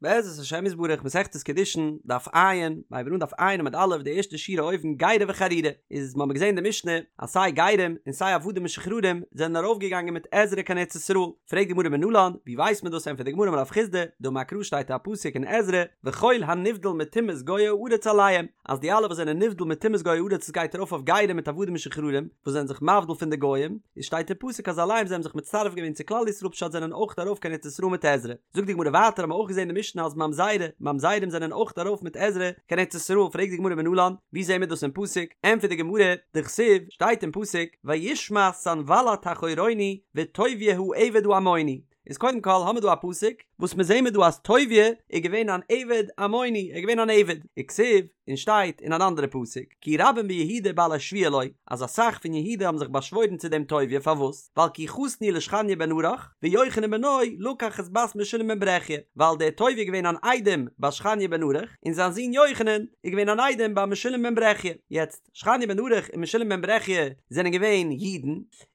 בעזרת השם יתברך מסכת קידושין, דף ע', מ'הייבט אן דף ע' עמוד א', די ערשטע שורה אויבן גירי וחרורי, איז מ'האמיר געזען די משנה אז סיי גרים און סיי עבדים משוחררים זענען ארויפגעגאנגען מיט עזרא קיין ארץ ישראל, פרעגט די גמרא מנלן, ווי ווייסט מען דאס ענטפערט די גמרא אמר רב חסדא, דאמר קרא שטייט א פסוק אין עזרא, וכל הנבדל מטומאת גויי הארץ אליהם, אז די אלע וואס זענען נבדל מטומאת גויי הארץ עס גייט ארויף אויף גרים מיט עבדים משוחררים וואס זענען זיך מבדיל פון די גוים, איז שטייט אין פסוק אז אליהם זיי האבן זיך מצטרף געווען צו כלל ישראל פשט זענען אויך ארויף קיין ארץ ישראל מיט עזרא. זאגט די גמרא ווייטער האבן מיר אויך געזען אין די משנה אז ממזרי, ממזרים זענען אויך ארויף מיט עזרא קיין ארץ ישראל, פרעגט די גמרא מנלן, ווי זעהן מיר דאס אין פסוק? ענטפערט די גמרא, דכתיב, שטייט אין פסוק, וישמע סנבלט החורוני וטוביה העבד העמוני, איז קודם כל האמיר דא א פסוק וואס מיר זעהן מיר דא אז טוביה איז געווען אן עבד עמוני, ער איז געווען אן עבד, וכתיב, און שטייט אין אן אנדערע פסוק, כי רבים ביהודה בעלי שבועה לו, אז אסאך פון יהודה האבן זיך באשוואוירן צו דעם טוביה, פארוואס? ווייל כי חתן הוא לשכניה בן ארח, ויוחנן בנו לקח את בת משולם בן ברכיה, ווייל דער טוביה איז געווען אן איידעם ביי שכניה בן ארח, און זיין זון יוחנן איז געווען אן איידעם ביי משולם בן ברכיה. יעצט, שכניה בן ארח און משולם בן ברכיה זענען געווען אידן,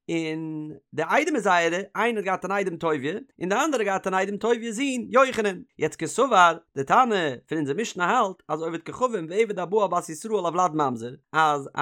און די איידעמער זייערע, איינער האט געהאט אן איידעם טוביה, און די אנדערע האט געהאט אן איידעם טוביה'ס זון יוחנן. יעצט קסבר, די תנא פון אונזער משנה האלט אז עובד כוכבים ועבד הבא על בת ישראל הולד ממזר, אז א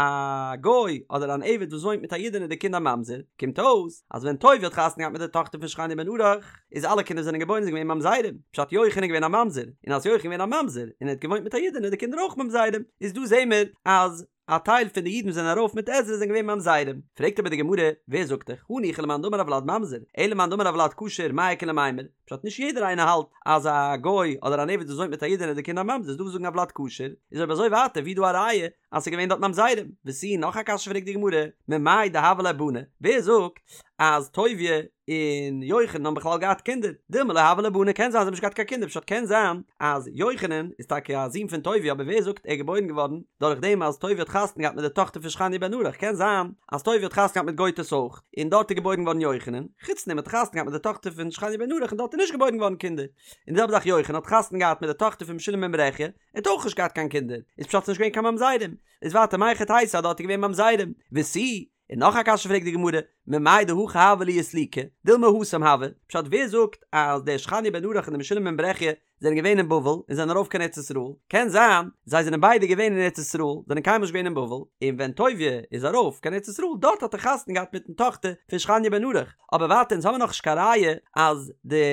גוי אדער אן עבד וואס וואוינט מיט א אידענע איז די קינד א ממזר, קומט אויס אז ווען טוביה האט חתונה געהאט מיט די טאכטער פון שכניה בן ארח, איז אלע קינדער זענען געבוירן זענען געווען ממזרים, פשט יוחנן איז געווען א ממזר, און אז יוחנן איז געווען א ממזר און ער האט געוואוינט מיט א אידענע איז די קינדער אויך ממזרים, איז דא זעהן מיר אז א טייל פון די אידן וואס זענען ארויף מיט עזרא זענען געווען ממזרים. פרעגט אבער די גמרא, ווער זאגט דיך, הניחא למאן דאמר הולד ממזר, אלא למאן דאמר הולד כשר מאי איכא למימר, פשט נישט יעדער איינער האלט אז א גוי אדער אן עבד וואס וואוינט מיט א אידענע איז די קינד א ממזר, איז דא וואס זאגן הולד כשר, איז אויב אזוי ווייטער ווי איז דא א ראיה אז ס'איז געווען דארט ממזרים? ותו נאך א קשיא פרעגט די גמרא, ממאי דהוו ליה בני, ווער זאגט אז טוביה און יוחנן האבן בכלל געהאט קינדער, דילמא לא הוו ליה בני, קען זיין זיי האבן נישט געהאט קיין קינדער, פשט קען זיין אז יוחנן איז טאקע א זון פון טוביה אבער ווער זאגט ער איז געבוירן געווארן דורך דעם אז טוביה האט חתונה געהאט מיט די טאכטער פון שכניה בן ארח, קען זיין אז טוביה האט חתונה געהאט מיט גויטעס אויך און דארט איז געבוירן געווארן יוחנן, חוץ דעם האט ער חתונה געהאט מיט די טאכטער פון שכניה בן ארח און דארט איז נישט געבוירן געווארן קינדער, און די זעלבע זאך יוחנן האט חתונה געהאט מיט די טאכטער פון משולם בן ברכיה, ער האט אויך נישט געהאט קיין קינדער, איז פשט ס'נישט געווען קיין ממזרים, איז ווייטער מהיכי תיתי אז דארט איז געווען ממזרים, ותו, און נאך א קשיא פרעגט די גמרא, ממאי דהכא הוה להו סליקי, דילמא התם הוו, פשט ווער זאגט אז דער שכניה בן ארח און דער משולם בן ברכיה זענען געווען אין בבל און זענען ארויף קיין ארץ ישראל, קען זיין זיי זענען ביידע געווען אין ארץ ישראל, זענען קיינמאל נישט געווען אין בבל, און ווען טוביה איז ארויף קיין ארץ ישראל דארט האט ער חתונה געהאט מיטן טאכטער פון שכניה בן ארח, אבער ווייטער אונז האבן נאך נישט קיין ראיה אז די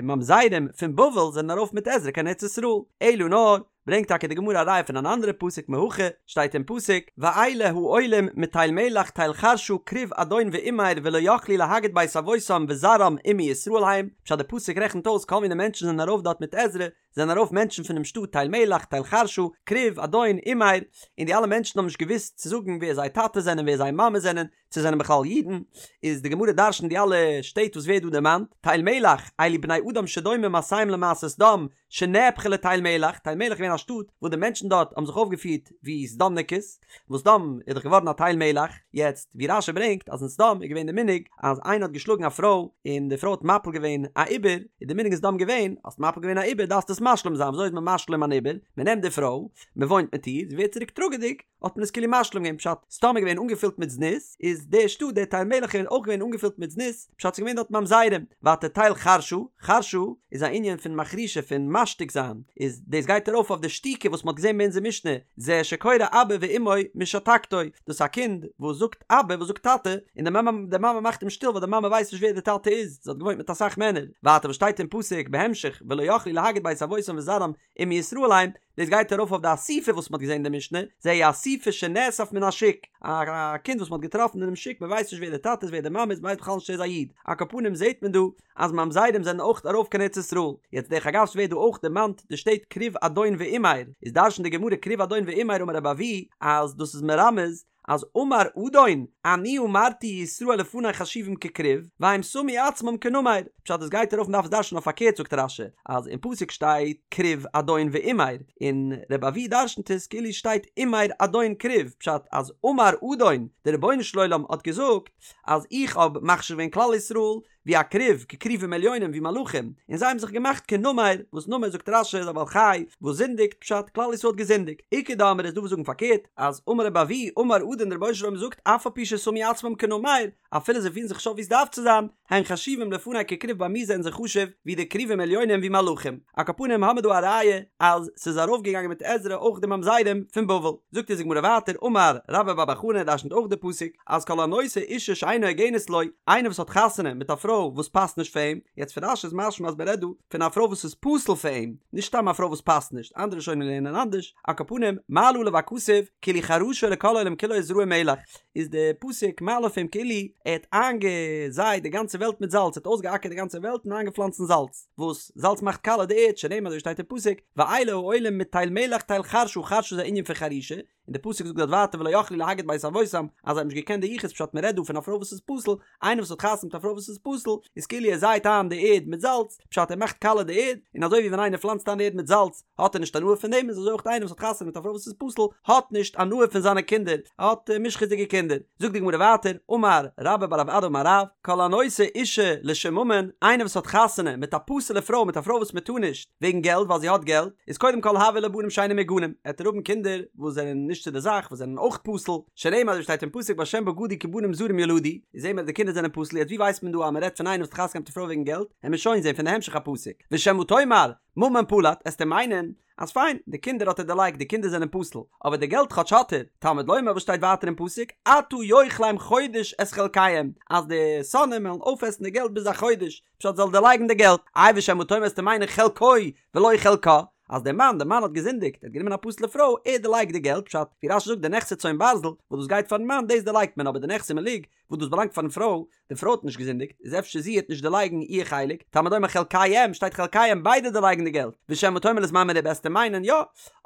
ממזרים פון בבל זענען ארויף מיט עזרא קיין ארץ ישראל, אלא נאר ברענגט טאקע די גמרא א ראיה פון אן אנדערע פסוק מהכא, שטייט אין פסוק, ואלה העולים מתל מלח תל חרשא כרוב אדון ואמר ולא יכלו להגיד בית אבותם וזרעם אם מישראל הם, פשט די פסוק רעכנט אויס כל מיני מענטשן זענען ארויף דארט מיט עזרא, זענען ארויף מענטשן פונעם שטאט תל מלח תל חרשא, כרוב אדון אמר, און די אלע מענטשן האבן נישט געוואוסט צו זאגן ווער זייער טאטע זענען ווער זייער מאמע זענען, צו זענען בכלל אידן, איז די גמרא דרש'נט די אלע שטעט וואס ווערט דא דערמאנט, תל מלח, אלו בני אדם שדומים מעשיהם למעשה סדום, שנהפכה לתל מלח, תל מלח איז געווען א שטאט וואס די מענטשן דארט האבן זיך אויפגעפירט ווי סדומ'ניקעס, וואס סדום איז דאך געווארן א תל מלח, יעצט ווי רש"י ברענגט אז אין סדום איז געווען די מנהג אז איינער האט געשלאגן א פרוי און די פרוי האט מפיל געווען א עובר, איז די מנהג אין סדום געווען האסט מפיל געווען א עובר דארפסטו עס משלים זיין, וויאזוי איז מען משלים אן עובר? מען נעמט די פרוי, מען וואוינט מיט איר, זי ווערט צוריק טראגעדיג, האט מען עס כאילו משלים געווען פשט סדום איז געווען אנגעפילט מיט זנות איז די שטאט די תל מלח איז אויך געווען אנגעפילט מיט זנות פשט ס'איז געווען דארט ממזרים ווייטער תל חרשא חרשא איז א ענין פון מחרישה פון משתיק זיין איז דאס גייט ארויף אויף די שתיקה וואס מ'האט געזען ביי אונזער משנה זה שקורא אבא ואמו משתקתו דאס איז א קינד וואס זאגט אבא וואס זאגט טאטע און די מאמע די מאמע מאכט אים שטיל ווייל די מאמע ווייסט נישט ווער די טאטע איז זי האט געוואוינט מיט אסאך מענער ווייטער וואס שטייט אין פסוק בהמשך ולא יכלו להגיד בית אבותם וזרעם אם מישראל הם, דאס גייט ארויף אויף די אסופי וואס מ'האט געזען אין די משנה, זהו אסופי שנאסף מן השוק, א קינד וואס מ'האט געטראפן אינעם שוק, מ'ווייסט נישט ווער די טאטע איז ווער די מאמע איז, מ'ווייסט בכלל נישט צו ער איז א איד, על כל פנים זעט מען דא אז ממזרים זענען אויך ארויף קיין ארץ ישראל, יעצט דרך אגב ס'ווערט דא אויך דערמאנט די שטעט כרוב אדון ואמר, איז דרש'נט די גמרא כרוב אדון ואמר אמר רבי אבהו אז דאס איז מרמז אז אמר אדון, אני אמרתי ישראל לפני חשובים ככרוב, והם שמו עצמם כנמר, פשט עס גייט ארויף מ'דארף עס דרש'נען אויף פארקערט זאגט רש"י אז אין פסוק שטייט כרוב אדון ואמר, און רבי אבהו דרש'נט עס כאילו שטייט אמר אדון כרוב, פשט אז אמר אדון, דער רבונו של עולם האט געזאגט אז איך האב מחשיב געווען כלל ישראל. ווי א כרוב, ככרובים עליונים ווי מלאכים, און זיי האבן זיך געמאכט כנמר, וואס נמר זאגט רש"י איז א בעל חי וואס זינדיגט, פשט, כלל ישראל האט געזינדיגט. איכא דאמרי איז דא וואס זאגן פארקערט, אז אמר רבי אבהו, אמר אדון דער רבונו של עולם זאגט אף על פי ששמו עצמם כנמר, אפילו זיי פירן זיך נישט אויף ווי עס דארף צו זיין, הן חשובים לפני ככרוב ביי מיר זענען זיי חשוב ווי די כרובים עליונים ווי מלאכים. על כל פנים האמיר דא א ראיה אז ס'איז ארויפגעגאנגען מיט עזרא אויך די ממזרים פון בבל. זאגט אונז די גמרא ווייטער אמר רבה בר בר חנה דרשנ'ט אויך די פסוק אז כל הנושא אישה שאינה הוגנת לו, איינער וואס האט חתונה מיט א פרוי וואס פאסט נישט פאר אים, יעצט פון רש"י איז משמע אז מ'רעדט דא פון א פרוי וואס איז פסול פאר אים, נישט סתם א פרוי וואס פאסט נישט, אנדערע ראשונים לערנען אנדערש, על כל פנים מעלה עליו הכתוב כאילו חרשו לכל העולם כולו וזרעו מלח. איז די פסוק מעלה אויף אים כאילו ער האט איינגעזייט די גאנצע וועלט מיט זאלץ, ער האט אויסגעאקערט די גאנצע וועלט און איינגעפלאנצן זאלץ, וואס זאלץ מאכט קאלע די ערד, שנאמר אזוי שטייט אין פסוק, ואלה העולים מתל מלח תל חרשא, חרשא איז א ענין פון חרישה, און די פסוק זאגט דארט ווייטער ולא יכלו להגיד בית אבותם, אז זיי האבן נישט געקענט די יחוס פשט מען רעדט דא פון א פרוי וואס איז פסול, איינער וואס האט חתונה מיט א פרוי וואס איז פסול, איז כאילו ער זייט איין די ערד מיט זאלץ, פשט ער מאכט קאלע די ערד, און אזוי ווי ווען איינער פלאנצט איין די ערד מיט זאלץ, האט ער נישט הנאה פון דעם איז אזוי אויך איינער וואס האט חתונה מיט א פרוי וואס איז פסול האט נישט הנאה פון זיינע קינדער ער האט מושחת'דיגע קינדער זאגט די גמרא ווייטער אמר רבה בר רב אדא אמר רב כל הנושא אישה לשם ממון איינער וואס האט חתונה מיט א פסול'ע פרוי מיט א פרוי וואס מען טאר נישט וועגן געלט ווייל זי האט געלט איז קודם כל הוו ליה בנים שאינם מהוגנים עט ער האבן קינדער וואס זענען נישט צו די זאך וואס זענען אויך פסול שנאמר אזוי שטייט אין פסוק בהשם בגדו כי בנים זרים ילדו איז זעהן מיר אז די קינדער זענען פסול יעצט ווי ווייסט מען דא אז מען רעדט פון איינער וואס האט חתונה געהאט מיט א פרוי וועגן געלט עמיר שוין זעהן פון די המשך הפסוק ושמא תאמר ממון פלט, עסטו מיינען אז פיין, די קינדער האט ער דערלייגט, די קינדער זענען פסול, אבער די געלט כאטש האט ער, תלמוד לומר וואס שטייט ווייטער אין פסוק, עתה יאכלם חודש את חלקיהם, אז די שונאים וועלן אויפעסן די געלט ביז א חודש, פשט זאל דערלייגן די געלט, איי ושמא תאמר עסטו מיינען חלקו ולא חלקה, אז דער מאן, דער מאן האט געזינדיגט, ער האט גענומען א פסול'ע פרוי, ער דערלייגט די געלט, פשט, ווי רש"י זאגט די נכסי צאן ברזל, וואס דאס גייט פארן מאן, דאס דערלייגט מען, אבער די נכסי מלוג, וואס דאס באלאנגט פארן פרוי, די פרוי האט נישט געזינדיגט, איז אפשר זי העט נישט דערלייגן איר חלק, תלמוד לומר חלקיהם, שטייט חלקיהם ביידע דערלייגן די געלט, ושמא תאמר לזמן מרובה עסטו מיינען יא,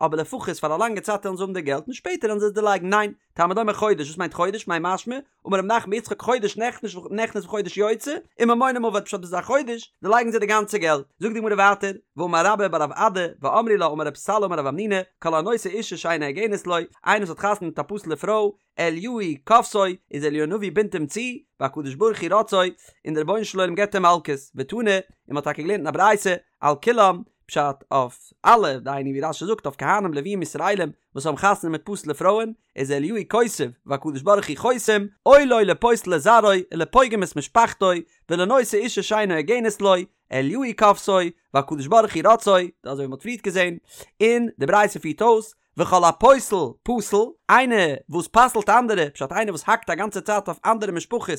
אבער לפחות פאר א לאנגע צייט וועלן זיי האבן די געלט און שפעטער וועלן זיי עס דערלייגן, ניין, תלמוד לומר חודש, וואס מיינט חודש, מאי משמע, אמר רב נחמן בר יצחק חודש נכנס נכנס וחודש יוצא, וממונם אבד פשט ביז א חודש דערלייגן זיי די גאנצע געלט, זאגט די גמרא ווייטער, ואמר רבה בר רב אדא, ואמרי לה אמר רב סלא אמר רב המנונא, כל הנושא אישה שאינה הוגנת לו, איינער וואס האט חתונה מיט א פסול'ע פרוי, אליהו כופתו, איז אליהו הנביא בינדט אים צו, והקדוש ברוך הוא רוצעו, און דער רבונו של עולם געבט אים מלקות, ותנא, און מען האט טאקע געלערנט אין א ברייתא, על כולם, פשט אויף אלע, דהיינו ווי רש"י זאגט אויף כהנים לוויים ישראלים וואס האבן חתונה מיט פסול'ע פרויען, איז אליהו כותב, והקדוש ברוך הוא חותם, אוי לו לפוסל את זרעו, ולפוגם את משפחתו, ולנושא אישה שאינה הוגנת לו, אליהו כופתו, והקדוש ברוך הוא רוצעו, אזוי ווי מען האט פריערט געזען, און די ברייתא פירט אויס, וכל הפוסל פסול, איינער וואס פסל'ט אנדערע, פשט איינער וואס האקט א גאנצע צייט אויף אנדערע משפחות,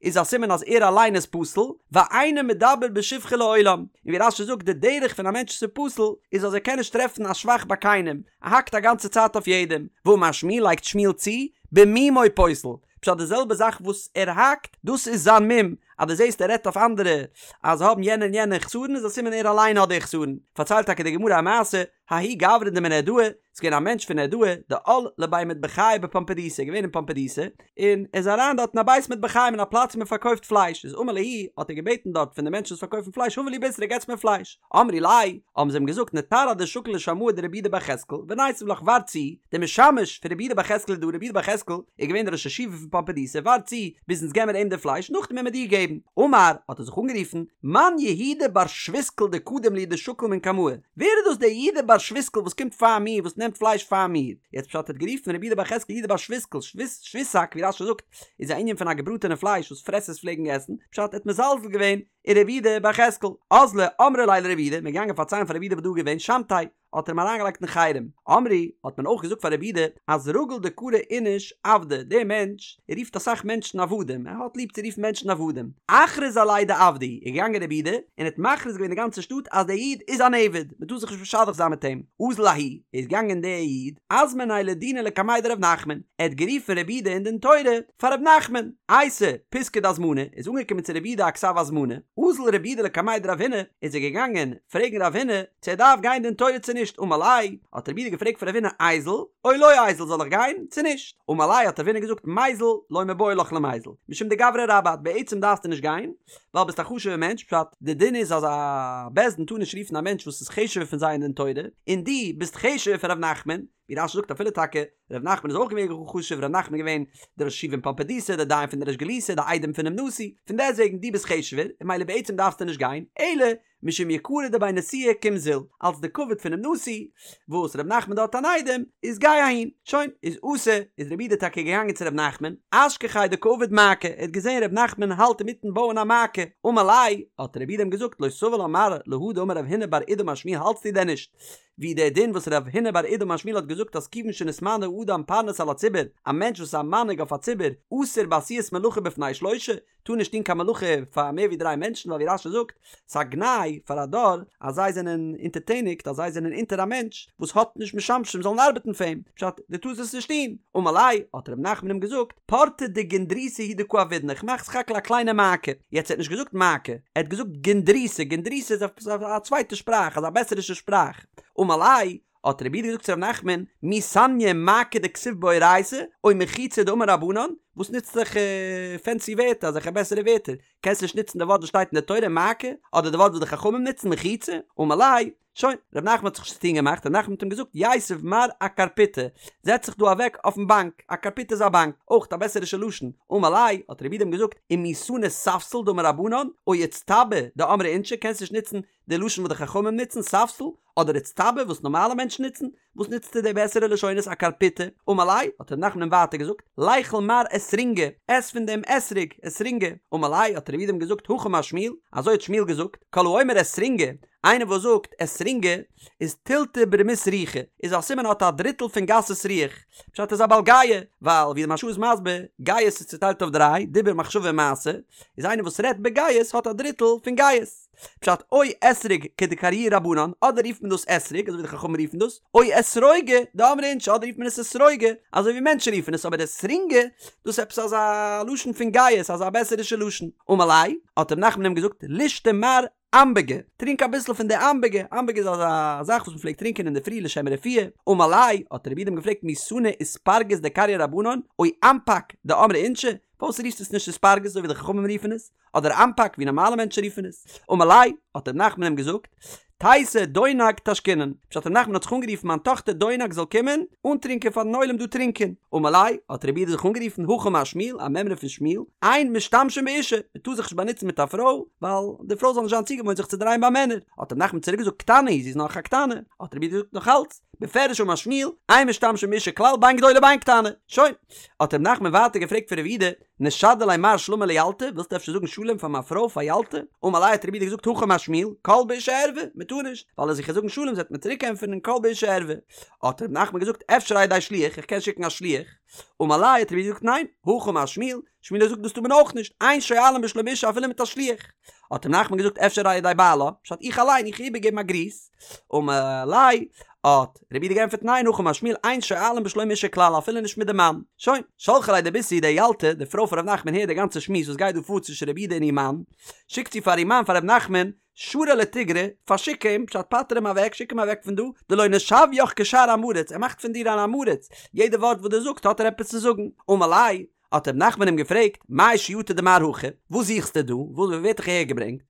איז א סימן אז ער אליין איז פסול, ואינו מדבר בשבחו לעולם, און ווי רש"י זאגט די דרך פון א מענטש וואס איז פסול, איז אז ער קען נישט טרעפן א שבח ביי קיינעם, ער האקט א גאנצע צייט אויף יעדעם, ואמר שמואל לייגט שמואל צו, במומו פוסל, פשט די זעלבע זאך וואס ער האקט, דאס איז זיין מום, אז דו זעסט ער רעדט אויף אנדערע אז זיי האבן יענע און יענע חסרון איז א סימן ער אליין האט די חסרון, פארציילט טאקע די גמרא א מעשה, ההוא גברא דמנהרדעא, ס'איז געווען א מענטש פון נהרדעא, דעל לבי מטבחיא בפומבדיתא, געווען אין פומבדיתא, און ער איז אריין דארט אין א בית מטבחיים אין א פלאץ ווי מען פארקויפט פלייש, איז אמר להו, האט ער געבעטן דארט פון די מענטשן וואס פארקויפן פלייש הבו לי בישרא געטס מיר פלייש, אמרי ליה, האבן זיי אים געזאגט נתר עד דשקיל לשמעא דרב יהודה בר יחזקאל, וניתיב לך ווארט צו, דער משמש פון רב יהודה בר יחזקאל איז דא, רב יהודה בר יחזקאל איז געווען דער ראש ישיבה פון פומבדיתא, ווארט צו ביז אונז געבן מיר אים די פלייש, נאכדעם וועלן מיר דיר געבן. אמר, האט ער זיך אנגערופן, מאן יהודה בר שוויסקל דקדים לי דשקיל מן קמאי, ווער איז דאס דער יהודה בר שוויסקל וואס קומט פאר מיר, וואס נעמט פלייש פאר מיר? יעצט פשט ער האט גערופן רבי יהודה בר יחזקאל יהודה בר שוויסקל, שוויסאק ווי רש"י זאגט, איז א ענין פון א געבראטענע פלייש וואס פרעסערס פלעגן עסן, פשט ער האט מזלזל געווען אין רבי יהודה בר יחזקאל. אזלו אמרו ליה לרבי יהודה, מ'איז געגאנגען פארציילן פאר רבי יהודה וואס דא איז געווען, שמתיה, האט ער אים אריינגעלייגט אין חרם. אמרי, האט מען אויך געזאגט פאר רבי יהודה, אז רגיל דקרי איניש עבדא, דער מענטש רופט אסאך מענטשן עבדים, ער האט ליב צו רופן מענטשן עבדים. אכריז עליה דעבדא הוא, איז געגאנגען רבי יהודה, און האט מכריז געווען די גאנצע שטאט אז דער איד איז אן עבד, מען טאר זיך נישט משדך זיין מיט אים. אזל ההוא, איז געגאנגען דער איד, אזמניה לדינא לקמיה דרב נחמן, ער האט גערופן רבי יהודה אין דין תורה פאר רב נחמן. אייתי פיתקא דהזמנה, איז אנגעקומען צו רבי יהודה א כתב הזמנה, אזל רבי יהודה לקמיה דרב הונא, איז ער געגאנגען פרעגן רב הונא, צו ער דארף גיין דין תורה צו נישט, אמר ליה, האט רב יהודה געפרעגט פון רב הונא איזיל, או לא איזיל זאל איך גיין צו נישט, אמר ליה האט רב הונא געזאגט מיזל לא מיבעי לך למיזל, משום דגברא רבה את בעצם דארפסטו נישט גיין, ווייל ביסט א חשוב'ער מענטש, פשט, די דין איז אז א בית דין טאר נישט רופן א מענטש וואס איז חשוב'ער פון זיי אין דין תורה, און דו ביסט חשוב'ער פון ר' נחמן, ווי רש"י זאגט אפילו טאקע ר' נחמן איז אויך געווען גאר חשוב, ר' נחמן איז געווען דער ראש ישיבה אין פומבדיתא, דער דיין פון די ריש גלותא, דער איידעם פונעם נשיא, פון דעסטוועגן דו ביסט חשוב'ער, און ממילא בעצם דארפסטו נישט גיין, אלא משום יקרא דבי נשיאה קום זיל, אלס די כבוד פונעם נשיא, וואס ר' נחמן דארט אן איידעם, איז גיי אהין. שוין, איז אתא, איז רבי יהודה טאקע געגאנגען צו ר' נחמן, אשכחיה דקא עביד מעקה, ער האט געזען ר' נחמן האלט אינמיטן בויען א מעקה, אמר ליה, האט רבי יהודה אים געזאגט לא סבר לה מר להא דאמר רב הונא בר אידי אמר שמואל האלטסטו דען נישט ווי דער דין וואס רב הונא בר אידי אמר שמואל האט געזאגט אז כיוון שנתמנה אדם פרנס על הציבור, א מענטש וואס איז א מנהיג אויף א ציבור, אסור בעשיית מלאכה בפני שלושה, טאר נישט טון קיין מלאכה פאר מער ווי דריי מענטשן ווייל ווי רש"י זאגט, ס'איז א גנאי פאר א דור אז זיי זענען אונטערטעניגט אז זיי זענען אונטער א מענטש וואס האט נישט משמשים זאלן ארבעטן פאר אים, פשט, דו טארסט עס נישט טון. אמר ליה, האט ר' נחמן אים געזאגט, פורתא דגונדריתא הוא דקא עבידנא, איך מאך סך הכל א קליינע מעקה. יעצט ער האט נישט געזאגט מעקה, ער האט געזאגט גונדריתא, גונדריתא איז עפעס א צווייטע שפראך, אזא בעסערישע שפראך. אמר ליה, האט רבי יהודה געזאגט צו ר' נחמן, מי סניא מעקה דכתיב באורייתא, או מחיצה דאמור רבנן, וואס נוצט אזעלכע פענסי ווערטער, אזעלכע בעסערע ווערטער, קענסט נישט נוצן די ווארט וואס שטייט אין די תורה מעקה, אדער די ווארט וואס די חכמים נוצן מחיצה, אמר ליה, שוין, ר' נחמן האט זיך נישט צוטון געמאכט, ר' נחמן האט אים געזאגט, יתיב מר אקרפיטא, זעץ זיך דא אוועק אויפן באנק, א קרפיטא איז א באנק, אויך א בעסערישע לשון, אמר ליה, האט רבי יהודה אים געזאגט, ומי סני ספסל דאמור רבנן, או אצטבא דאמרי אינשי, קענסט נישט נוצן די לשון וואס די חכמים נוצן, ספסל, אדער אצטבא וואס נארמאלע מענטשן נוצן, וואס נוצטו די בעסערע לשונות אקרפיטא, אמר ליה, האט ר' נחמן אים ווייטער געזאגט, ליכול מר אסרינגא, עס פון דעם אתרוג, אסרינגא, אמר ליה, האט רבי יהודה אים געזאגט, הכי אמר שמואל, אזוי האט שמואל געזאגט, כל האומר אסרינגא, איינער וואס זאגט אסרינגא, איז תילתא ברמית רוחא, איז א סימן האט א דריטל פון גסות רוח, פשט איז א בעל גאוה, ווייל ווי די מהרש"א איז מסביר, גאות איז צוטיילט אויף דריי, דיבור מחשבה און מעשה, איז איינער וואס רעדט בגאות האט א דריטל פון גאות. פשט או אתרוג כדקריוה רבנן, אדער רופט מען דאס אתרוג אזוי ווי די חכמים רופן דאס, או אתרוגא דאמרי אינשי אדער רופט מען עס אתרוגא אזוי ווי מענטשן רופן עס, אבער אסרינגא דאס איז עפעס אזא לשון פון גאות אזא בעסערישע לשון. אמר ליה, האט ר' נחמן אים געזאגט, לישתי מר אמבגא, טרינק אביסל פון די אמבגא, אמבגא איז אזא זאך וואס מען פלעגט טרינקען אינדערפרי לשם רפואה, אמר ליה, האט רבי יהודה אים געפרעגט מי סני איספרגת דקריוה רבנן, או אמפק דאמרי אינשי, פארוואס רופסטו עס נישט איספרגת אזוי ווי די חכמים רופן עס? אדער אמפק ווי נארמאלע מענטשן רופן עס, אמר ליה, האט ר' נחמן אים געזאגט, תיתי דונג תשקינן, פשט ר' נחמן האט זיך אנגערופן מיין טאכטער דונג זאל קומען אנטרינקען פארן עולם דא טרינקען, אמר ליה, האט רבי יהודה זיך אנגערופן, הכי אמר שמואל, א מימרא פון שמואל, אין משתמשים באשה, מען טאר זיך נישט באנוצן מיט א פרוי, ווייל די פרוי זאל נישט זיין צוגעוואוינט זיך צו דרייען ביי מענער, האט ר' נחמן צוריק געזאגט, קטנה היא, זי איז נאך א קטנה, האט רבי יהודה געזאגט נאך אלץ, בפירוש אמר שמואל, אין משתמשים באשה כלל בין גדולה בין קטנה, שוין, האט ר' נחמן ווייטער געפרעגט פון רבי יהודה, נשדי ליה מר שלמא לילתא, ווילסט אפשר זאגן שלום פאר מיין פרוי פאר ילתא? אמר ליה האט רבי יהודה געזאגט הכי אמר שמואל, קול באשה ערווה, מען טאר נישט, ווייל אז איך וועל זאגן שלום זי וועט מיר צוריק ענטפערן קול באשה ערווה. האט ר' נחמן געזאגט אפשר על ידי שליח, איך קען שיקן א שליח. אמר ליה האט רבי יהודה געזאגט ניין, הכי אמר שמואל, שמואל האט געזאגט דאס טאר מען אויך נישט, אין שואלין בשלום אשה אפילו מיט א שליח. האט ר' נחמן געזאגט אפשר על ידי בעלה, פשט איך אליין איך איבערגעבן א גריס. אמר ליה, האט רבי יהודה געענטפערט ניין הכי אמר שמואל אין שואלין בשלום אשה כלל אפילו נישט מיט די מאן. שוין, שלחה ליה דביתהו די ילתא, די פרוי פון ר' נחמן הערט די גאנצע שמועס וואס גייט דא פאר צווישן רבי יהודה און איר מאן, שיקט זי פאר איר מאן פאר ר' נחמן, שרי לתיגרא, פארשיק אים, פשט פטר אים אוועק, שיק אים אוועק פון דא, דלא נשוויך כשאר עם הארץ, ער מאכט פון דיר אן עם הארץ, יעדע ווארט וואס דו זאגסט האט ער עפעס צו זאגן. אמר ליה, האט ר' נחמן אים געפרעגט, מאי שיאטו דמר הכא? וואס זוכסטו דא? וואס ווער האט דיך אהער געברענגט?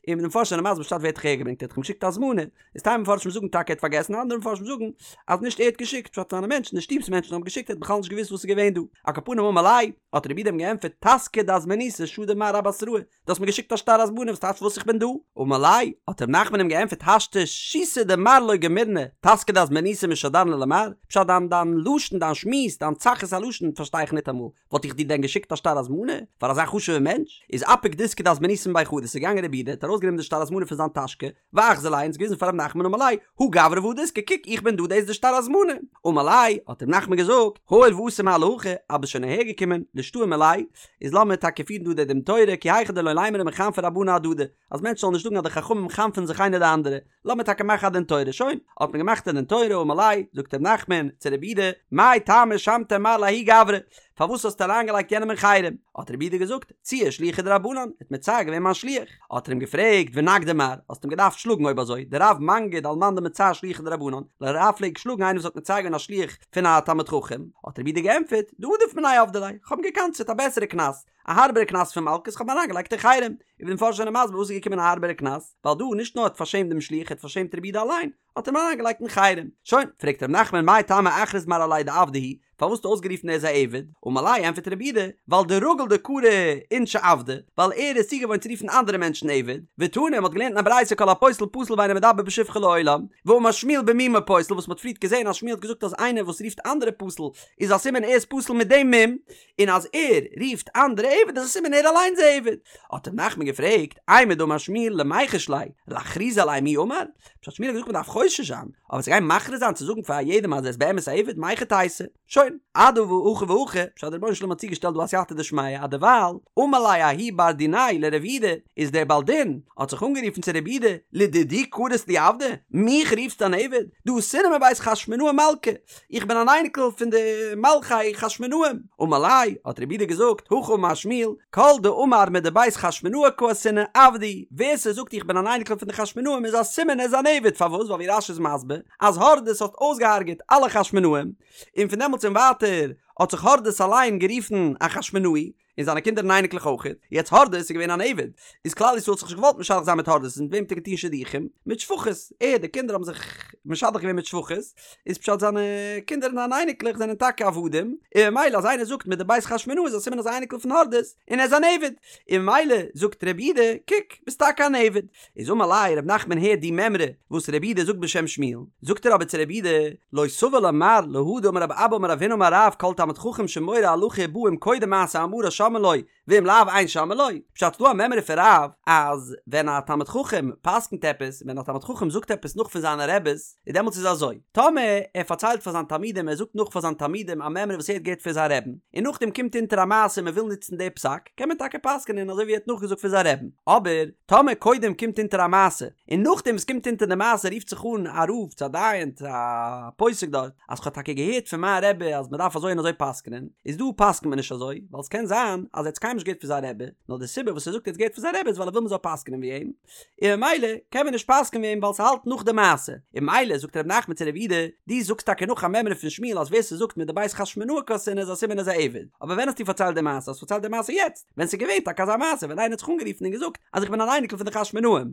און די מפרשים זענען מסביר פשט ווער האט דיך אהער געברענגט, ער האט דאך אים געשיקט א הזמנה, איז טייל מפרשים זאגן טאקע ער האט פארגעסן, אנדערע מפרשים זאגן אז נישט ער האט געשיקט, פשט זיינע מענטשן, די שטוב'ס מענטשן האבן געשיקט, ער האט בכלל נישט געוואוסט וואס איז געווען דא. על כל פנים אמר ליה, האט רבי יהודה אים געענטפערט, טסקא דהזמנותא שדי מר אבתראי, דו האסט מיר געשיקט א שטר הזמנה וואס טייטש וואס איך בין דא? אמר ליה, האט ר' נחמן אים געענטפערט השתא שיתא דמר לא גמירנא, טסקא דהזמנותא משדרנא למר, פשט דיין דיין לשון דיין שמועס דיין צחות הלשון פארשטיי איך ניטאמאל, וואלט איך דיר דען געשיקט א שטר הזמנה פאר אזא חשוב'ע מענטש? איז אפיק דיסקא דהזמנותא מבי חדא, ס'איז געגאנגען רבי יהודה האט ארויסגענומען די שטר הזמנה פון זיין טאשקע, ואחזי ליה און עס געוויזן פאר ר' נחמן אמר ליה, הא גברא והא דיסקא קוק איך בין דא דאס איז די שטר הזמנה, אמר ליה, האט ר' נחמן געזאגט, הואיל ואתא מר להכא, אז ביסט שוין אהער געקומען, לישתעי מיליה, איז לאמיר טאקע פירן דא די דין תורה, כי היכי דלא לימרו מחנפי רבנן אהדדי, אז מענטשן זאלן נישט זאגן אז די חכמים חנפ'ן זיך איינער די אנדערע, לאמיר טאקע מאכן א דין תורה, שוין, האט מען געמאכט א דין תורה, אמר ליה, זאגט ר' נחמן צו רבי יהודה, מאי טעמא שמתיה מר לההוא גברא, פארוואס האסטו אריינגעלייגט יענעם אין חרם? האט רבי יהודה געזאגט, ציער שליחא דרבנן, ער האט מצער געווען מיין שליח. האט ער אים געפרעגט, ונגדיה מר, האסט אים געדארפט שלאגן אויב אזוי, דרב מנגיד על מאן דמצער שליחא דרבנן, רב פלעגט שלאגן איינער וואס האט מצער געווען א שליח פון א תלמיד חכם, האט רבי יהודה געענטפערט, דעדיף מיניה עבדי ליה, כ'האב אים געקנס'עט א בעסערע קנס, א הארבערע קנס פון מלקות, כ'האב אים אריינגעלייגט אין חרם. ווי די מפרשים זענען מסביר וואס איז געקומען א הארבערע קנס, ווייל דא נישט נאר האט פארשעמט דעם שליח ער האט פארשעמט רבי יהודה אליין, האט אים אריינגעלייגט אין חרם. שוין, פרעגט ר' נחמן מאי טעמא אכריז מר עליה דעבדא הוא, פארוואס האסטו אויסגערופן ער איז א עבד? אמר ליה ענפערט רבי יהודה, ווייל דרגיל דקרי אינשי עבדי, ווייל ער איז צוגעוואוינט צו רופן אנדערע מענטשן עבד, ותנא, מ'האט געלערנט אין א ברייתא כל הפוסל פסול ואינו מדבר בשבחו לעולם, ואמר שמואל במומו פוסל וואס מ'האט פריערט געזען אז שמואל האט געזאגט אז איינער וואס רופט אנדערע פסול איז א סימן ער איז פסול מיט דעם מום, און אז ער רופט אנדערע עבד איז א סימן ער אליינס איז א עבד. האט ר' נחמן געפרעגט, אימר דאמר שמואל למיחש ליה, לאכרוזי עליה מי אמר? פשט שמואל האט געזאגט מ'דארף חושש זיין, אבער צו גיין מכריז זיין צו זאגן פאר יעדעם אז ער איז באמת א עבד, מהיכי תיתי? שוין, אדהכי והכי, פשט דער רבונו של עולם האט צוגעשטעלט דא א סייעתא דשמיא, אז דערווייל, אמר ליה ההוא בר דיניה לרב יהודה, איז דער בעל דין האט זיך אנגערופן צו רב יהודה, לדידי קרית לי עבדא, מיך רופסטו אן עבד? דאתינא מבית חשמונאי מלכא, איך בין אן אייניקל פון די מלכי חשמונאים. אמר ליה, האט רב יהודה געזאגט, הכי אמר שמואל, כל דאמר מדבית חשמונאי קאתינא עבדא הוא, ווער ס'זאגט איך בין אן אייניקל פון די חשמונאים איז א סימן ער איז אן עבד, פארוואס? ווייל ווי רש"י איז מסביר, אז הורדוס האט אויסגעהארגעט אלע חשמונאים, און פון דעמאלטס און ווייטער האט זיך הורדוס אליין גערופן א חשמונאי, און זיינע קינדער און אייניקלעך אויך. יעצט הורדוס איז געווען אן עבד, איז כלל ישראל האט זיך נישט געוואלט משדך זיין מיט הורדוס, מיט וועם האט ער געטון שידוכים? מיט שפחות, ער, די קינדער האבן זיך משדך געווען מיט שפחות, איז פשט זיינע קינדער און זיינע אייניקלעך זענען טאקע עבדים, און ממילא אז איינער זאגט מדבית חשמונאי איז א סימן אז אייניקל פון הורדוס, און ער איז אן עבד, און ממילא זאגט רב יהודה, קוק, ביסט טאקע אן עבד. איז אמר ליה רב נחמן הערט די מימרא וואס רב יהודה זאגט בשם שמואל, זאגט ער אבער צו רב יהודה, לא סבר לה מר להא דאמר רב אבא אמר רב הונא אמר רב כל תלמיד חכם שמורה הלכה ובא אם קודם מעשה אמרה שומעין לו ואם לאו אין שומעין לו, פשט ס'דא א מימרא פון רב אז ווען א תלמיד חכם פסקנט עפעס ווען א תלמיד חכם זאגט עפעס נאך פון זיינע רעבעס איז דעמאלטס איז אזוי טאמער ער פארציילט פאר זיין תלמידים ער זאגט נאך פאר זיין תלמידים א מימרא וואס ער האט געהערט פון זיין רעבן און נאכדעם קומט אונטער א מעשה און מען וויל נוצן די פסק קען מען טאקע פסק'נען אזוי ווי ער האט נאכגעזאגט פון זיין רעבן אבער טאמער קודם קומט אונטער א מעשה, און נאכדעם וואס קומט אונטער די מעשה רופט זיך אן א רב צו א דיין צו א פוסק דארט, אז כ'האב טאקע געהערט פון מיין רבי אז מ'דארף אזוי און אזוי פסק'נען, איז דא פסק'נט מען נישט אזוי, ווייל ס'קען זיין אז ער האט עס קיינמאל נישט געהערט פון זיין רבי, נאר די סיבה וואס ער זאגט ער האט עס געהערט פון זיין רבי איז ווייל ער וויל מ'זאל פסק'נען ווי אים, און ממילא קען מען נישט פסק'נען ווי אים ווייל ס'האלט נאך די מעשה, און ממילא זאגט ר' נחמן צו רב יהודה, דו זאגסט טאקע נאך א מימרא פון שמואל אז ווער ס'זאגט מדבית חשמונאי קאתינא איז א סימן איז א עבד, אבער ווען האסטו פארציילט די מעשה? האסט פארציילט די מעשה יעצט? ווען ס'איז געווען טאקע אזא מעשה ווען איינער האט זיך אנגערופן און געזאגט אז איך בין אן אייניקל פון די חשמונאים,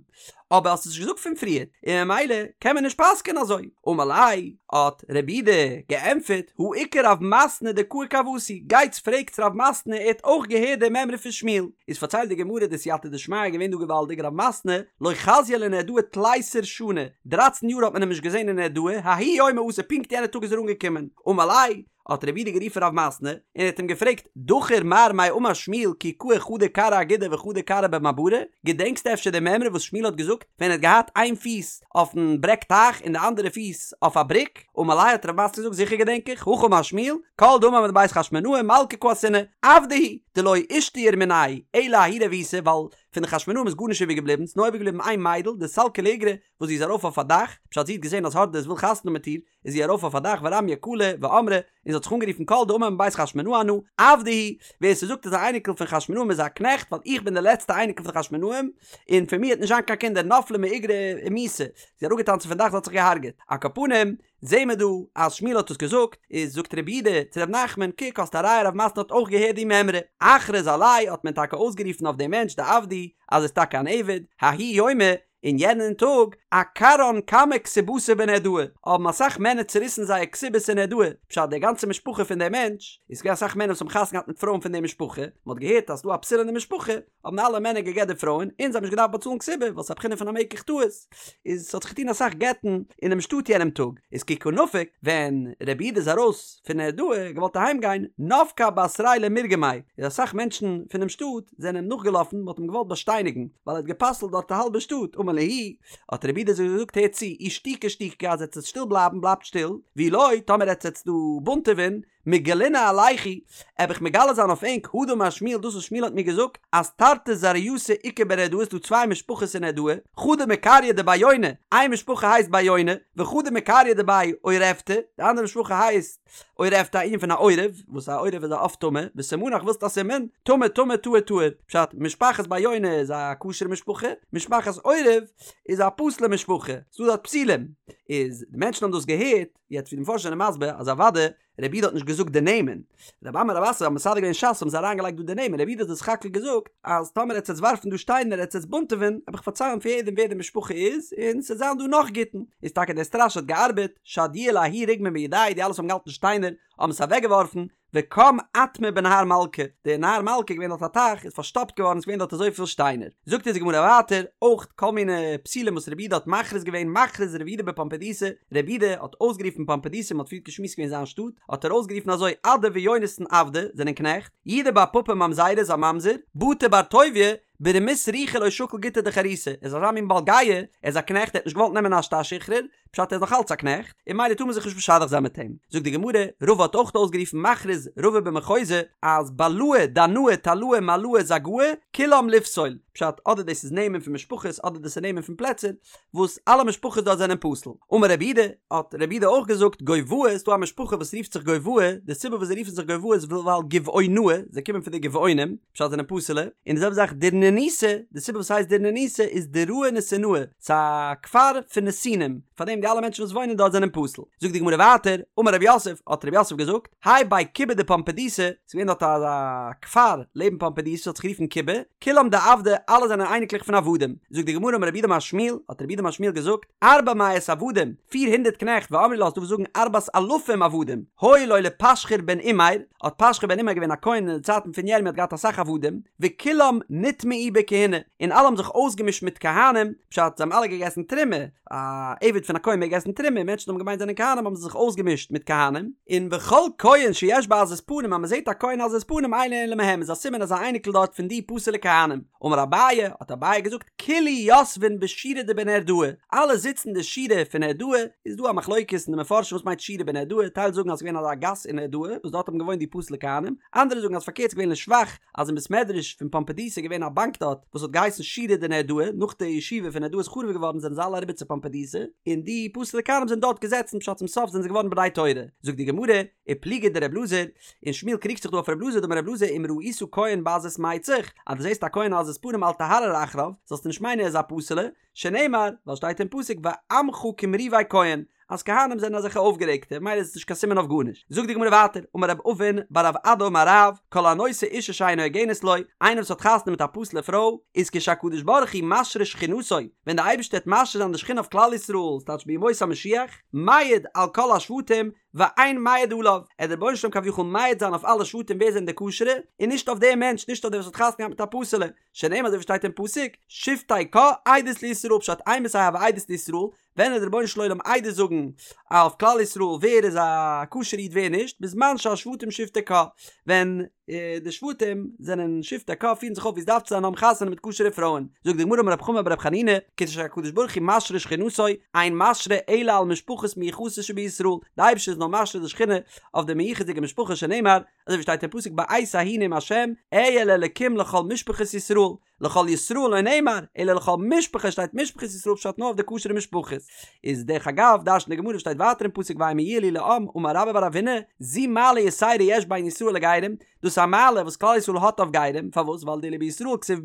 אבער האסט עס נישט געזאגט פון פריער, און ממילא קען מען נישט פסק'ען אזוי. אמר ליה, האט רב יהודה געענטפערט, הא איכא רב מתנה דקאי כוותי, גייטס פרעגטס רב מתנה ער האט אויך געהערט די מימרא פון שמואל. איז פארציילט די גמרא די סייעתא דשמיא איז געווען דא געוואלדיג רב מתנה לא חזייה לנהרדעא תליסר שני, דרייצן יאר האט מען אים נישט געזען אין נהרדעא, ההוא יומא אתא פונקט יענע טאג איז ער אנגעקומען, אמר ליה, האט רב יהודה גערופן רב מתנה און ער האט אים געפרעגט, דכיר מר מאי אמר שמואל כי קאי חדא כרעא אגודא וחדא כרעא במעברא, געדענקסטו אפשר די מימרא וואס שמואל האט געזאגט ווען ער האט געהאט איין פיס אויפן ברעג טייך און די אנדערע פיס אויף א בריק? אמר ליה האט רב מתנה געזאגט זיכער געדענק איך, הכי אמר שמואל, כל דאמר מדבית חשמונאי מלכא קאתינא, עבדא הוא, דלא אישתייר מנייהו אלא ההיא רבותא ווייל פון די חשמונאים איז גארנישט איבער געבליבן, ס'איז נאר איבער געבליבן איין מיידל דסלקא לאיגרא וואס זי איז ארויף אויף א דאך, פשט זי האט געזען אז הורדוס וויל חתונה מיט איר, איז זי ארויף אויף א דאך ורמיא קלא ואמרה, און זי האט זיך אנגערופן כל דאמר מבית חשמונאי אנא, עבדא הוא, ווער ס'זאגט איז א אייניקל פון חשמונאים איז א קנעכט ווייל איך בין די לעצטע אייניקל פון חשמונאים, און פון מיר וועט נישט זיין קיין קינדער נפלה מאיגרא ומיתה, זי איז אראפגעטאנצן פון דאך זי האט זיך געהארגעט, על כל פנים, זעהן מיר דא אז שמואל האט עס געזאגט, איז זאגט רב יהודה צו רב נחמן, קוק האסט א ראיה רב מתנה האט אויך געהערט די מימרא, אכריז עליה האט מען טאקע אויסגערופן אויף דעם מענטש דעבדא הוא אז ער איז טאקע אן עבד, ההוא יומא, אין יענעם טאג, עקרן כמה כתובתא בנהרדעא, האבן אסאך מענער צוריסן זייער כתובות אין נהרדעא, פשט די גאנצע משפחה פון דעם מענטש, איז געווען אסאך מענער וואס האבן חתונה געהאט מיט פרויען פון די משפחה, מען האט געהערט אז ס'דא א פסול אין די משפחה, האבן אלע מענער גע'גט די פרויען, און זיי האבן נישט געדארפט באצאלן כתובה, ווייל ס'איז א בחינה פון א מקח טעות, איז ס'האט זיך געטון אסאך גט'ן אינעם שטאט יענעם טאג, איז כי קא נפיק, ווען רב יהודה איז ארויס פון נהרדעא, געוואלט אהיים גיין, נפקי בתריה למירגמיה, איז אסאך מענטשן פונעם שטאט זענען אים נאכגעלאפן, מ'האט אים געוואלט באשטייניגן, ווייל ער האט גע'פסל'ט דארט א האלבע שטאט, אמר להו, האט רב יהודה זיי געזאגט הערט צו, אי שתיקו שתיקו אז עטס וועט שטיל בלייבן בלייבט שטיל, ואי לא, טאמער עטס וועטס דא בונטעווען, מגלינא עלייכו, עב איך מגלה זיין אויף ענק, הא דאמר שמואל דאס וואס שמואל האט מיר געזאגט, אז תרתי זרעייתא איכא בנהרדעא ס'דא צוויי משפחות אין נהרדעא, חדא מקריא דבי יוני, איין משפחה הייסט בי יוני, וחדא מקריא דבי עורבתא, די אנדערע משפחה הייסט עורבתא א ענין פון א עורב, וואס א עורב איז א עוף טמא, וסימנך ווילסט א סימן? טמא טמא טהור טהור, פשט, משפחת בי יוני איז א כשר'ע משפחה, משפחת עורב איז א פסול'ע משפחה, ס'דא דארט פסולים. איז די מענטשן האבן דאס געהערט, יעצט ווי די מפרשים זענען מסביר אז אוודאי רבי יהודה האט נישט געזאגט די נעמען, רבי אמי רבי אסי האבן מסדר געווען ש"ס האבן זיי אריין געלייגט דא די נעמען, רבי יהודה האט דאס סך הכל געזאגט אז טאמער עטס עטס ווארפן דא שטיינער עטס עטס בונטעווען וועל איך פארציילן פאר יעדעם ווער די משפחה איז און ס'עט זיין דא נאך גיטין, איז טאקע דער סטראשע האט געארבעט, שדיוה לההוא רגמא מידייהו די אלע וואס האבן געהאלטן שטיינער האבן עס אוועק געווארפן, וקם אטמא בנהר מלכא, דער נהר מלכא איז געווען דארט א טייך, איז פארשטאפט געווארן, ס'איז געווען דארט אזויפיל שטיינער. זאגט אונז די גמרא ווייטער, אויך כל מיני פסולים וואס רבי יהודה האט מכריז געווען, מכריז רבי יהודה בפומבדיתא, רבי יהודה האט אויסגערופן פומבדיתא, מ'האט פריערט געשמועסט געווען זיין שטאט, האט ער אויסגערופן אזוי, אדא ויונתן עבדי, זענען קנעכט, יהודה בר פפא ממזרא איז א ממזר, בטא בר טוביה, ברמות רוחא לא שקיל גיטא דחירותא, ער איז אזא מין בעל גאוה, ער איז א קנעכט, ער האט נישט געוואלט נעמען א שטר שחרור, פשט ער איז נאך אלץ א קנעכט, און ממילא טאר מען זיך נישט משדך זיין מיט אים. זאגט די גמרא, רבא האט אויך אויסגערופן מכריז רבא במחוזא, אז בלאי דנאי תלאי מלאי זגאי, כולם לפסול, פשט אדער דאס איז נעמען פון משפחות אדער דאס איז נעמען פון פלעצער, וואס אלע משפחות דארט זענען פסול. אמר רב יהודה, האט רב יהודה אויך געזאגט, גובאי, ס'איז דא א משפחה וואס רופט זיך גובאי, די סיבה וואס זיי רופן זיך גובאי איז ווייל גבעונאי, זיי קומען פון די גבעונים, פשט זענען פסול'ע, און די זעלבע זאך דורנוניתא, די סיבה וואס ס'הייסט דורנוניתא איז דוראי נתינאי, ס'איז א כפר פון נתינים, פארדעם די אלע מענטשן וואס וואוינען דארט זענען פסול. זאגט די גמרא ווייטער, אמר רב יוסף, האט רב יוסף געזאגט, האי בי כובי דפומבדיתא, ס'איז געווען דארט אזא כפר לעבן פומבדיתא האט זיך גערופן כובי, כולם דעבדי, אלע זענען אייניקלעך פון עבדים. זאגט די גמרא אמר רב יהודה אמר שמואל, האט רב יהודה אמר שמואל געזאגט, ארבע מאות עבדים, פיר הונדערט קנעכט, ואמרי לה, ס'דא וואס זאגן ארבעת אלפים עבדים, היו לו לפשחור בן אימר, האט פשחור בן אימר געווען א כהן אין די צייטן פון ירמי' האט געהאט אסאך עבדים, וכולם נטמעו בכהונה, און אלע האבן זיך אויסגעמישט מיט כהנים, פשט, זיי האבן אלע געגעסן תרומה, א עבד פון א כהן מעג עסן תרומה, מענטשן האבן געמיינט זענען כהנים האבן זיי זיך אויסגעמישט מיט כהנים, און וכל כהן שיש בו עזות פנים אז מען זעט א כהן עזות פנים אינו אלא מהם איז א סימן אז א אייניקל דארט פון די פסול'ע כהנים. אמר אביי, האט אביי געזאגט, כולהו יתבין בשורא דבנהרדעא, אלע זיצן די שורה פון נהרדעא, איז דא א מחלוקת אין די מפרשים וואס מיינט שורא בנהרדעא, טייל זאגן אז ס'איז געווען אזא גאס אין נהרדעא וואס דארט האבן געוואוינט די פסול'ע כהנים, אנדערע זאגן אז פארקערט ס'איז געווען לשבח אז אין בית מדרש פון פומבדיתא איז געווען א באנק דארט וואס האט געהייסן שורא דנהרדעא, נאך די ישיבה פון נהרדעא איז חרוב געווארן זענען זיי אלע אריבער צו פומבדיתא, און די פסול'ע כהנים זענען דארט געזעצן פשט צום סוף זענען זיי געווארן בני תורה, זאגט די גמרא, ופליגא דר' אלעזר, און שמואל קריגט זיך דא אויף ר' אלעזר דאמר ר' אלעזר אם ראית כהן בעזות מצח, אז דו זעסט א כהן עזות פנים אל תהרהר אחריו, זאלסטו נישט מיינען ער איז א פסול'ע, שנאמר, ווייל שטייט אין פסוק ועמך כמריבי כהן, אז כהנים זענען אזעלכע אויפגערעגטע, ממילא איז עס נישט קיין סימן אויף גארנישט. זאגט די גמרא ווייטער, אמר רב אבין בר רב אדא אמר רב, כל הנושא אישה שאינה הוגנת לו, איינער וואס האט חתונה מיט א פסול'ע פרוי, איז כשהקדוש ברוך הוא משרה שכינתו, ווען די אייבערשטער וועט משרה זיין די שכינה אויף כלל ישראל, ס'טייטש בימות המשיח, מעיד על כל השבטים, ואין מעיד עליו, עט דער רבונו של עולם כביכול מעיד זיין אויף אלע שבטים ווער זענען די כשר'ע, און נישט אויף דעם מענטש, נישט אויף דער וואס האט חתונה געהאט מיט א פסול'ע, שנאמר אזוי ווי שטייט אין פסוק, שבטי קה עדות לישראל פשט אימתי הוי עדות לישראל, ווען עט דער רבונו של עולם עדות זאגן אויף כלל ישראל ווער איז א כשר'ע איד ווער נישט, בזמן שהשבטים שבטי קה, ווען די שבטים זענען שבטי קה פירן זיך אויף ווי עס דארף צו זיין האבן חתונה מיט כשר'ע פרויען, זאגט די גמרא אמר רב חמא בר רב חנינא, כשהקדוש ברוך הוא משרה שכינתו, אין משרה אלא על משפחות מיוחסות שבישראל, די אייבערשטער איז נאר משרה די שכינה אויף די מיוחס'דיגע משפחות שנאמר, אזוי ווי שטייט אין פסוק בעת ההיא נאם השם, אהיה לאלקים לכל משפחות ישראל, לכל ישראל לא נאמר, אלא לכל משפחות שטייט משפחות ישראל פשט נאר אויף די כשר'ע משפחות. איז דרך אגב, דרש'נט די גמרא שטייט ווייטער אין פסוק והמה יהיו לי לעם, אמר רבה בר רב הונא, זו מעלה יתירה יש בין ישראל לגרים, דאס איז א מעלה וואס כלל ישראל האט אויף גרים, פארוואס? ווייל דאילו בישראל כתיב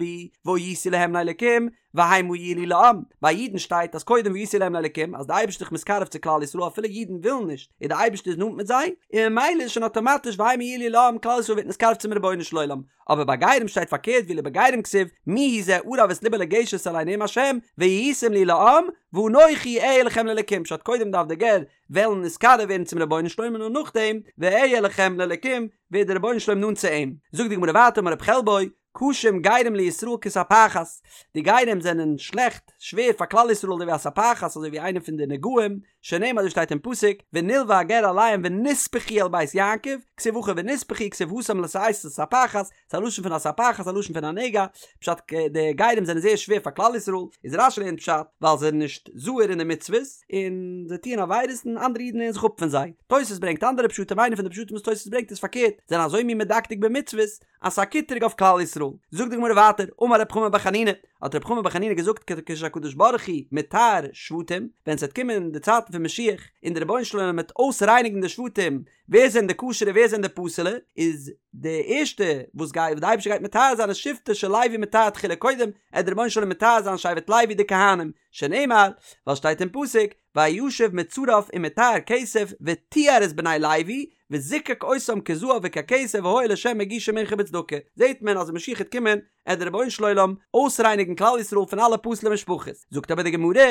בהו והייתי להם לאלקים, והמה יהיו לי לעם, ביי אידן שטייט אז קודם והייתי להם לאלקים, אז די אייבערשטער איז מתקרב צו כלל ישראל אפילו אידן ווילן נישט, און די אייבערשטער איז נאנט מיט זיי, און ממילא איז שוין אטאמאטיש והמה יהיו לי לעם, כלל ישראל ווערט נתקרב צום רבונו של עולם, אבער ביי גרים שטייט פארקערט ואילו בגרים כתיב מי הוא זה ערב את לבו לגשת אלי נאם השם והייתם לי לעם ואנכי אהיה לכם לאלקים פשט קודם דארף דער גר וועלן נתקרב ווערן צום רבונו של עולם און נאר נאכדעם ואהיה לכם לאלקים ווערט דער רבונו של עולם נאנט צו אים זאגט די גמרא ווייטער אמר רב חלבו קשים גרים לישראל כספחת די גרים זענען שלעכט שווער פאר כלל ישראל אזוי ווי א ספחת אזוי ווי איינע פון די נגעים שנאמר אזוי שטייט אין פסוק, ונלוה הגר עליהם ונספחו אל בית יעקב, כתיב הכא ונספחו כתיב התם לשאת הספחת, ס'איז א לשון פון א ספחת א לשון פון א נגע, פשט די גרים זענען זייער שווער פאר כלל ישראל, איז רש"י לערנט פשט, ווייל זיי זענען נישט זהיר אין די מצוות, און זיי טוען עבירות און אנדערע אידן לערנען זיך אפ פון זיי. תוס' ברענגט אנדערע פשטים איינע פון די פשטים וואס תוס' ברענגט איז פארקערט, זענען אזוי מין מדקדק במצוות, אז ס'איז א קטרוג אויף כלל ישראל. זאגט די גמרא ווייטער, אמר רב חמא בר חנינא, האט רב חמא בר חנינא געזאגט כשהקדוש ברוך הוא מטהר שבטים, ווען ס'וועט קומען די צייטן פון משיח, און דער רבונו של עולם וועט אויסרייניגן די שבטים, ווער זענען די כשר'ע ווער זענען די פסול'ע, איז די ערשטע וואס גייט וואס די אייבערשטער גייט מטהר זיין איז שבטו של לוי מטהר תחילה קודם עט דער רבונו של עולם מטהר זיין שבט לוי די כהנים, שנאמר, ווייל שטייט אין פסוק, וישב מצרף ומטהר כסף וטיהר את בני לוי וזיקק אותם כזהב וככסף והיו לה' מגישי מנחה בצדקה, זעט מען אז ווען משיח העט קומען עט דער רבונו של עולם אויסרייניגן כלל ישראל פון אלע פסול'ע משפחות, זאגט אבער די גמרא,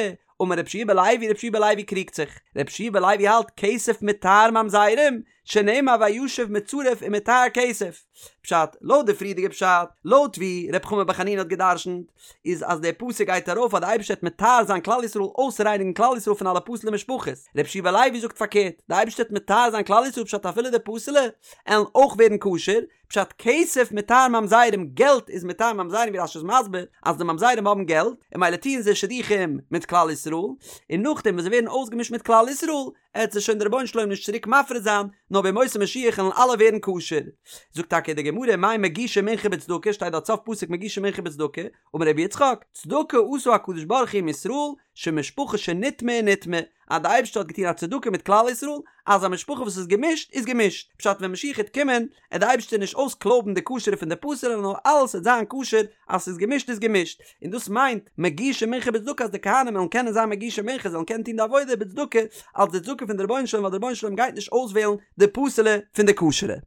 אמר רבי יהושע בן לוי, רבי יהושע בן לוי קריגט זיך, רבי יהושע בן לוי האלט כסף מטהר ממזרים, שנאמר וישב מצרף ומטהר כסף. פשט, לויט די פריערדיגע פשט, לויט ווי ר' חמא בר חנינא האט גע'דרשנ'ט, איז אז דער פסוק גייט ארויף אז די אייבערשטער וועט מטהר זיין כלל ישראל אויסרייניגן כלל ישראל פון אלע פסול'ע משפחות, רבי יהושע בן לוי זאגט פארקערט, די אייבערשטער וועט מטהר זיין כלל ישראל פשט אפילו די פסול'ע עלן אויך ווערן כשר, פשט כסף מטהר ממזרים געלט איז מטהר ממזרים ווי רש"י איז מסביר אז די ממזרים האבן געלט און ממילא טוען זיי שידוכים מיט כלל ישראל און נאכדעם ווען זיי ווערן אויסגעמישט מיט כלל ישראל עט זיי שוין דער רבונו של עולם נישט צוריק מפריד זיין נאר בימות המשיח עלן אלע ווערן כשר. זאגט טאקע די גמרא מאי מגישי מנחה בצדקה שטייט דארט סוף פסוק מגישי מנחה בצדקה אמר רבי יצחק צדקה עשה הקדוש ברוך הוא עם ישראל שמשפחה שנטמאה נטמאה אז די אייבערשטער האט געטון א צדקה מיט כלל ישראל אז א משפחה וואס איז געמישט איז געמישט, פשט ווען משיח העט קומען עט די אייבערשטער נישט אויסקלויבן די כשר'ע פון די פסול'ע נאר אלעס עט זיין כשר אז ס'איז געמישט איז געמישט, און דאס מיינט מגישי מנחה בצדקה אז די כהנים וועלן קענען זיין מגישי מנחה זיי וועלן קענען טון די עבודה בצדקה אלס די צדקה פון די רבונו של עולם ווייל די רבונו של עולם גייט נישט אויסוועלן די פסול'ע פון די כשר'ע.